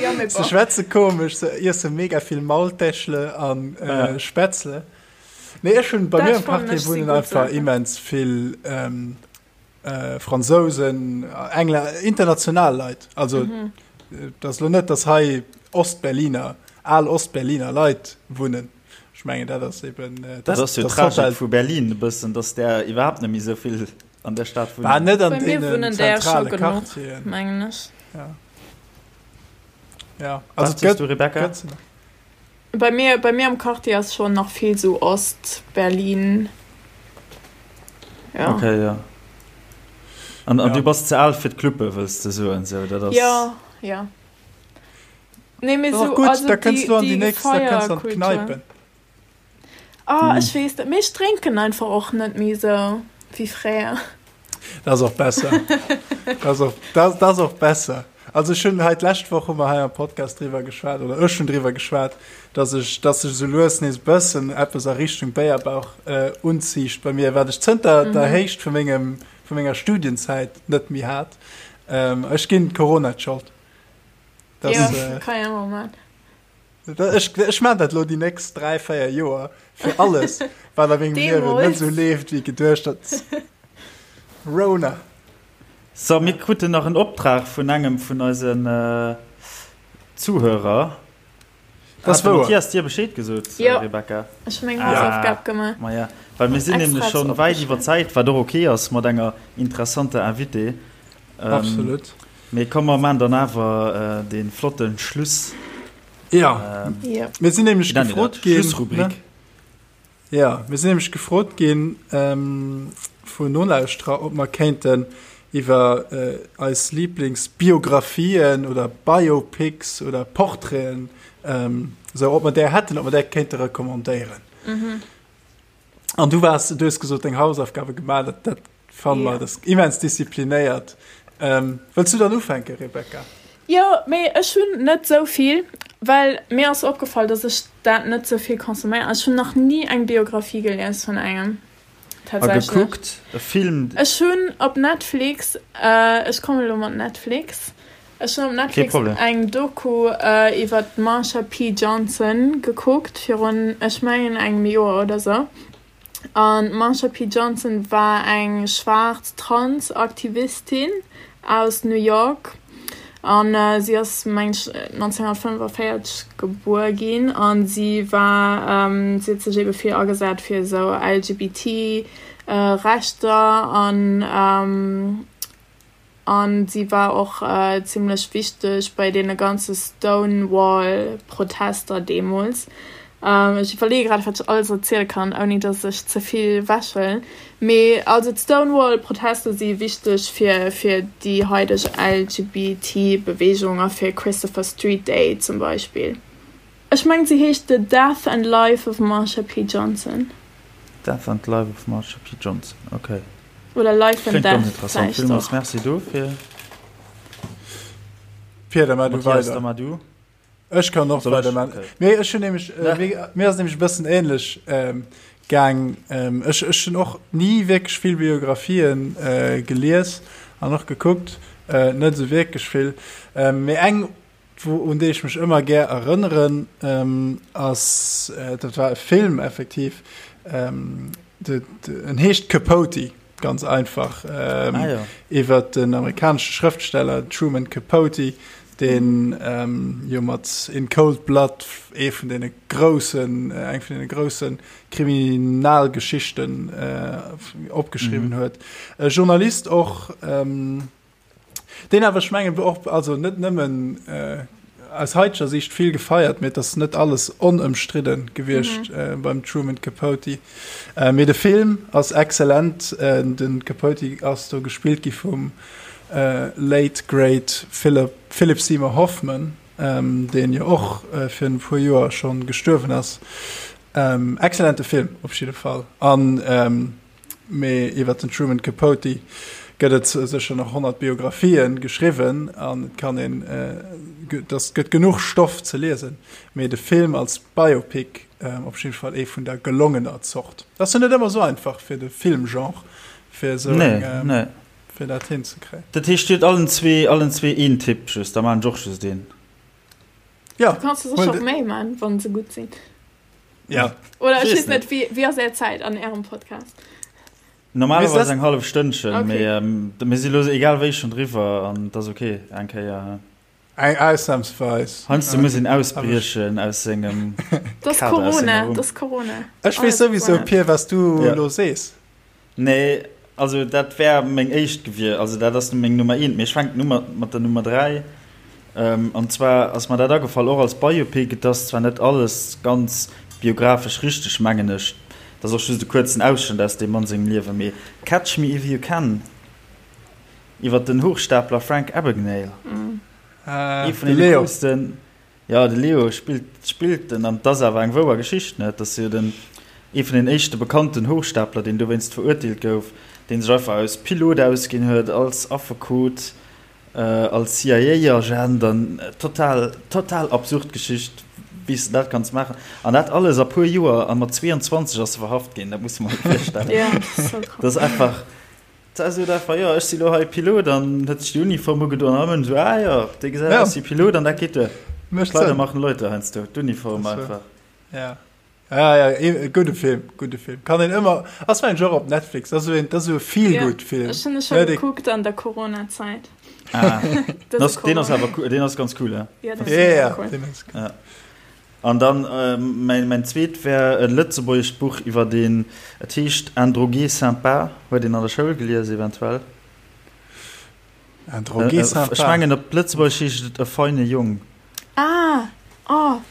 Ja, mee bon. Se schwätze komesch, se iesse mega vill Maultäschle an äh, Spätzle. Nee, ech hunn bei mir am Quartier wunnen einfach immens vill ähm, äh, Fransousen, Engler, international Leit. Also mhm. dat ass lo net, dass hei Ostberliner, al Ostberliner Leit wunnen. Ech mengen dat ass eben äh, dat ass jo d'Tragik vu Berlin e bëssen, dass där iwwerhaapt net méi esou vill an der Stad wunnen. Bah, net an deenen zentrale Quartieren. Mengen ech. Ja. Ja. Also gëtt, du, Rebecca? Gëtt Bei mir, bei mir am Quartier ass schon nach vill sou Ost-Berlin. Ja. Okay, ja. An, an ja. du bass ze al fir d'Cluppe, wëlls de soen, sou, dat ass. Ja, ja. Nee, mee sou, gutt, also da kënns du an déi nächst, da kënns du an d'Kneipen. Ah, ech weess net, mee ech drénken einfach och net méi sou wéi fréier. Dat ass och besser. Dat ass och, dat, dat ass och besser. Also ech hunn hei d'lescht Woch hu mer hei am Podcast driwwer geschwat, oder ech hunn driwwer geschwat, dass ech, dass sech esou lues nees e bëssen eppes a Richtung Béierbauch äh, unziicht bei mir, wat ech zënter der Héicht vu mengem, vu menger Studienzäit net méi hat. Ähm, ech ginn Corona d'Schold. Das, ja, äh, kann ja mal machen. Ech, ech maan dat lo déi nächst 3, 4 Joer fir alles, wat a mengem Liewen net esou leeft, wéi geduecht. Dat Rona. So, mir kruten nach en Optrag vun engem vun eisen Zuhörer. Das Hat de Mathias dir Bescheed gesot, Jo, Rebecca? ech hu meng Hausaufgab gemaach. Ma ja, well mir sinn nämlech Extra schonn wäit iwwer opgeschriwwen. Zäit, wat och ok ass mat enger interessanter Invitée. Absolut. Mee komm, mer maan dann awer dee flotte Schluss. Ja, Jo. mir sinn nämlech Wéi nennt een gefrot dat? ginn, ne? Schlussrubrik. Jo, mir sinn nämlech gefrot ginn vun Nolauschterer, ob mer kéinten iwwer eis Liblingsbiographien oder Biopics oder Portraiten, esou, ob mer där hätten, ob mer där kéinte recommandéieren. An du waars, du hues gesot, deng Hausaufgabe gemaach, dat, dat fanne mer, dat ass immens disziplinéiert. Wëlls du dann ufänken, Rebecca? Jo, mee ech hunn net esou vill, well mir ass opgefall, dass ech dat net sou vill consomméieren. Ech hunn nach ni eng Biographie gelies vun engem, A tatsächlech. gekuckt, e Film? Ech hunn op Netflix, ech kommen elo mat Netflix, ech hunn op Kee Netflix Problem. eng Doku iwwer d'Marsha P. Johnson gekuckt virun, ech mengen, engem Joer oder sou. An d'Marsha P. Johnson war eng schwaarz Trans-Aktivistin aus New York. An si ass, meng ech, 1945 gebuer ginn. A si war, si huet sech ebe vill agesat fir esou LGBT Rechter an An si war och zimmlech wichteg bei deene ganze Stonewall-Protester deemools. Ech iwwerleeë grad, wat ech alles erziele kann, ouni datt ech ze vill wechhuelen. Mee also d'Stonewall-Protester si wichteg fir fir déi haideg LGBT-Beweegung a fir Christopher Street Day zum Beispill. Ech mengen, se heescht The Death and Life of Marsha P. Johnson. Death and Life of Marsha P. Johnson, okay. Oder Life and Kléngt ganz Death interessant. vläicht Villmools och. Merci dofir. Pia, da mar du Mathias, weider. da mar du. Ech kann och Soll ech? weider man. Okay. Mee ech hunn nämlech, äh, Ja. mir, mir ass nämlech e bëssen ähnlech ähm, gaang. Ähm, ech, ech hunn och ni wierklech vill Biographien äh, gelies an och gekuckt, äh, net esou wierklech vill. Ähm, mee eng Wou un déi ech mech ëmmer gär erënneren, ass, dat war e Film effektiv, en heescht Capote, ganz einfach, iwwer den amerikanesche Schrëftsteller Truman Capote, deen jo mat In Cold Blood ee vun deene groussen, eng vun deene grousse Kriminalgeschichten opgeschriwwen huet. E Journalist och. Deen awer, ech mengen, och, also net nëmmen aus haiteger Siicht vill gefeiert, mee et ass net alles onëmstridde gewiescht beim Truman Capote. Mee de Film ass excellent. De Capote ass do gespillt gi vum late great Philip, Philip Seymour Hoffman, deen jo och virun e puer Joer scho gestuerwen ass. Excellente Film op jidde Fall. An Mee iwwer den Truman Capote gëtt et sécher nach 100 Biographien geschriwwen an et kann een, et ass, gëtt genuch Stoff ze liesen. Mee de Film als Biopic op jidde Fall ee vun der gelongener Zort. Ass jo net ëmmer esou einfach fir de Filmgenre, fir esou eng, fir dat hinzekréien. Dat heescht, Dir hutt allen zwee, allen zwee een Tipp just, da maan ech och just een. Jo, Du kanns der sécher och méi maan, wann se gutt sinn. Ja. Oder ech weess net, wéi, wéi ass är Zäit an ärem Podcast? Normalerweis eng hallef Stënnchen, okay. mee ähm, mir si lo egal wéi schon driwwer an dat ass okay eng Kéier. Eng ausnahmsweis. Heiansdo muss een ausbriechen aus sengem Das Kader, aus senger Corona, Rumm. das Corona. Ech weess souwisou, Pir, was du Ja. lo sees. Nee, also dat wär meng éischt gewier, also dat ass meng Nummer eent, mee ech fänken u mat mat der Nummer 3. An zwar ass mer dat agefall, och als Biopic, et ass zwar net alles ganz biographesch richteg, mengen ech, et ass och just e kuerzen Ausschnëtt aus deem Mann sengem Liewen, mee Catch Me If You Can iwwer den Hochstapler Frank Abagnale, ee vun deene coolsten. Jo, de Leo spillt spillt en, an 't ass awer eng wouer Geschicht, ne? Et ass jo den ee vun den éischte bekannten Hochstapler, deen dowéinst verurteelt gouf, deen sech einfach aus Pilot ausginn huet, als Affekot, als CIA-Agent, an total total absurd Geschicht, wéi s de dat kanns maachen. An dat alles a puer Joer, a mat 22 ass e verhaft ginn, dat muss de mer mol virstellen. Dat ass einfach. Da sot einfach, jo, ech si lo hei Pilot an huet sech déi Uniform ugedoen an ëmmer esou, ah jo, dee gesäit aus wéi Pilot an dat geet duer. Mécht Kleider Sënn. machen Leute heiansdo, d'Uniform Das war- einfach. Ja. Ja, ja, e gudde Film, gudde Film. Kann een ëmmer, ass mengen ech och op Netflix, ass esou een, dat ass esou e Feel-Good-Film. Ech hunn e scho Ne, dee- gekuckt an der Corona-Zäit. Ah, Dat das, deen ass awer cool, deen ass ganz cool, ja. Ja, dat Ja, ja, ass cool. deen ass cool. Ja. An dann äh, mäin, mäin zweet wär e lëtzebuergescht Buch iwwer deen, et heescht Un drogué sympa, huet een an der Schoul gelies eventuell. Un drogué Äh, sympa. Ech mengen op Lëtzebuergesch heescht et E feine Jong. Ah, oh.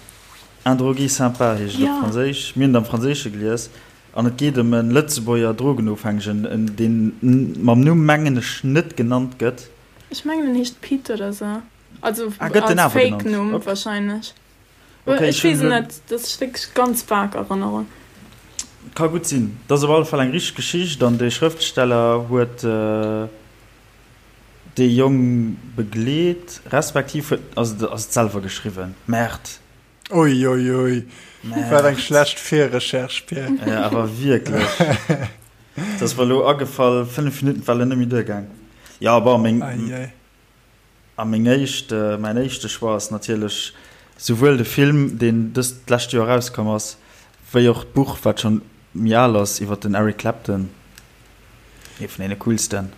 Un drogué sympa heescht et op Franséisch. Mir hunn et am Franséische gelies. An et geet ëm e Lëtzebuerger Drogenofhängegen, deen mam Numm, mengen ech, net genannt gëtt. Ech mengen en heescht Pit oder sou. Also Ah, gëtt den als awer genannt? Fake-Numm Ok. wahrscheinlech. Ok, Ech ech hunn weess et elo. net, dat ass wierklech ganz vag Erënnerung. Ka gutt sinn. Et ass op alle Fall eng richteg Geschicht an de Schrëftsteller huet dee Jong begleet, respektiv huet, ass et ass et selwer geschriwwen. Merde. Ui, ui, ui. Wat eng Merde. schlecht Virrecherche, Pierre. Ja, awer wierklech. Et ass mer elo agefall, 5 Minutten war elo net méi duergaang. Jo, bon, meng. Ei, ei. A meng éischt, mäin éischte Choix ass natierlech souwuel de Film, deen dëst lescht Joer erauskomm ass, wéi och d'Buch, wat schonn méi al ass, iwwer den Eric Clapton, ee vun deene coolsten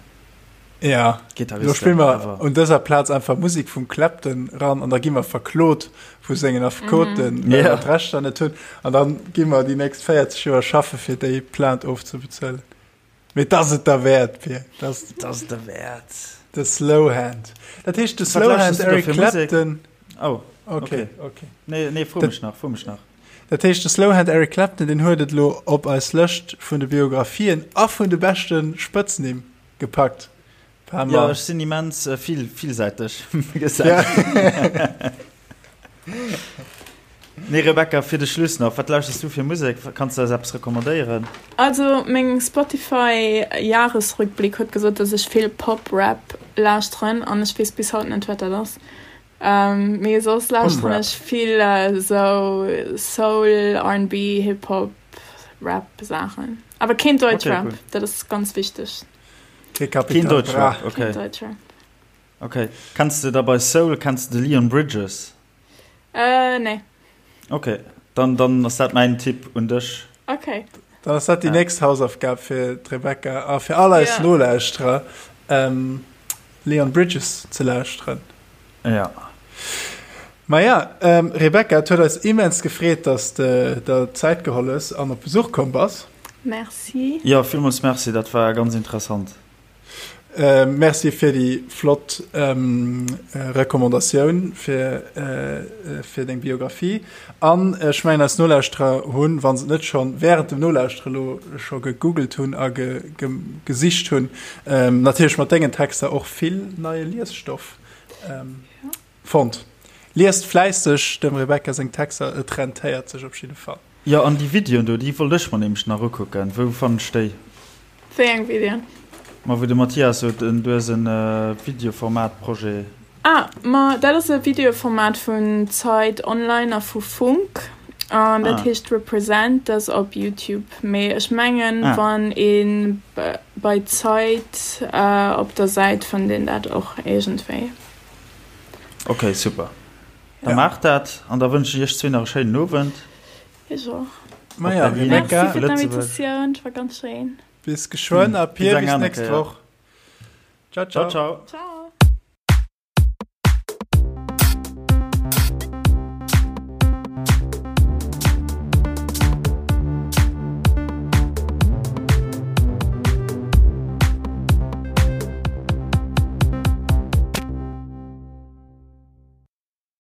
Ja, lo Gitarristen spille mer ever. un dëser Plaz einfach Musek vum Clapton ran an da gi mer verklot vu sengen Affekoten, well mer Ja. d'Rechter net hunn. An dann gi mer déi nächst 40 Joer schaffe fir déi Plainte ofzebezuelen. Mee 't ass et derwäert, Pir. 't ass 't ass et derwäert. De Slowhand. Dat heescht de Wat Slowhand lauschters du da Eric fir Musek? Clapton. Oh, Okay, okay. okay. Nee, nee, fro Dat- mech nach, fro mech nach. Dat heescht de Slowhand Eric Clapton, deen huet et elo op eis Lëscht vun de Biographien a vun de beschte Spëtznimm gepackt. Paar Ja, mer. ech sinn immens äh, vill, villsäiteg, Ja. gesäit. Nee, Rebecca, fir de Schluss nach, wat lauschters du fir Musek? Kanns du eis eppes recommandéieren? Also meng Spotify Jahresrückblick huet gesot dass ech vill Pop Rap lauschteren an ech weess bis haut net wat dat ass. Mee soss lauschteren Rap. ech vill esou Soul, R&B, Hip Hop, Rap Saachen. Awer keen Okay, Deutschrap, cool. dat ass ganz wichteg. Kee Keen Capital Bra. Deutschrap, Keen okay. Deutschrap. Okay. Kenns de da bei Soul, kenns de de Leon Bridges? Äh, nee. Okay, dann, dann ass dat mäin Tipp un dech. Okay. Dann ass dat déi Ja. nächst Hausaufgab fir d'Rebecca a fir all eis Ja. Nolauschterer, ähm, Leon Bridges ze lauschteren. Ja. Maja, ähm, Rebecca, et huet eis immens gefreet, dass de der Zäit geholl hues an op Besuch komm bass. Merci. Ja, villmools Merci, dat war ganz interessant. Merci fir déi flott Recommandatioun fir fir deng Biographie. An ech mengen eis Nolauschterer hunn, wa se et net schonn wärend dem Nolauschtere lo scho gegoogelt hunn a gesicht hunn, natierlech mat dengen Texter och vill neie Liesstoff fonnt. Liest fläisseg dem Rebecca seng Texter, et rentéiert sech op jidde Fall. Jo, an déi Videoen do, déi wollt ech mer nämlech nach ukucken. Wou fannen ech déi? Wéi eng Videoen? Ma wou de Mathias sot, du hues en Videoformat-Projet. Ah, ma dat ass e Videoformat vun Zeit Online a vu Funk. An dat heescht Represent, dat ass op Youtube. Mee ech mengen, wann ee bei Zeit op der Säit fënnt een dat och iergendwéi. Ok, super. Da maacht dat an da wënschen ech iech zwee nach e schéinen Owend. Ech och. Maja, Rebecca. Merci fir d'Invitatioun, et war ganz schéin. Bis geschwënn a Pir, bis nächst Woch. Ciao, ciao. Ciao, ciao. Ciao.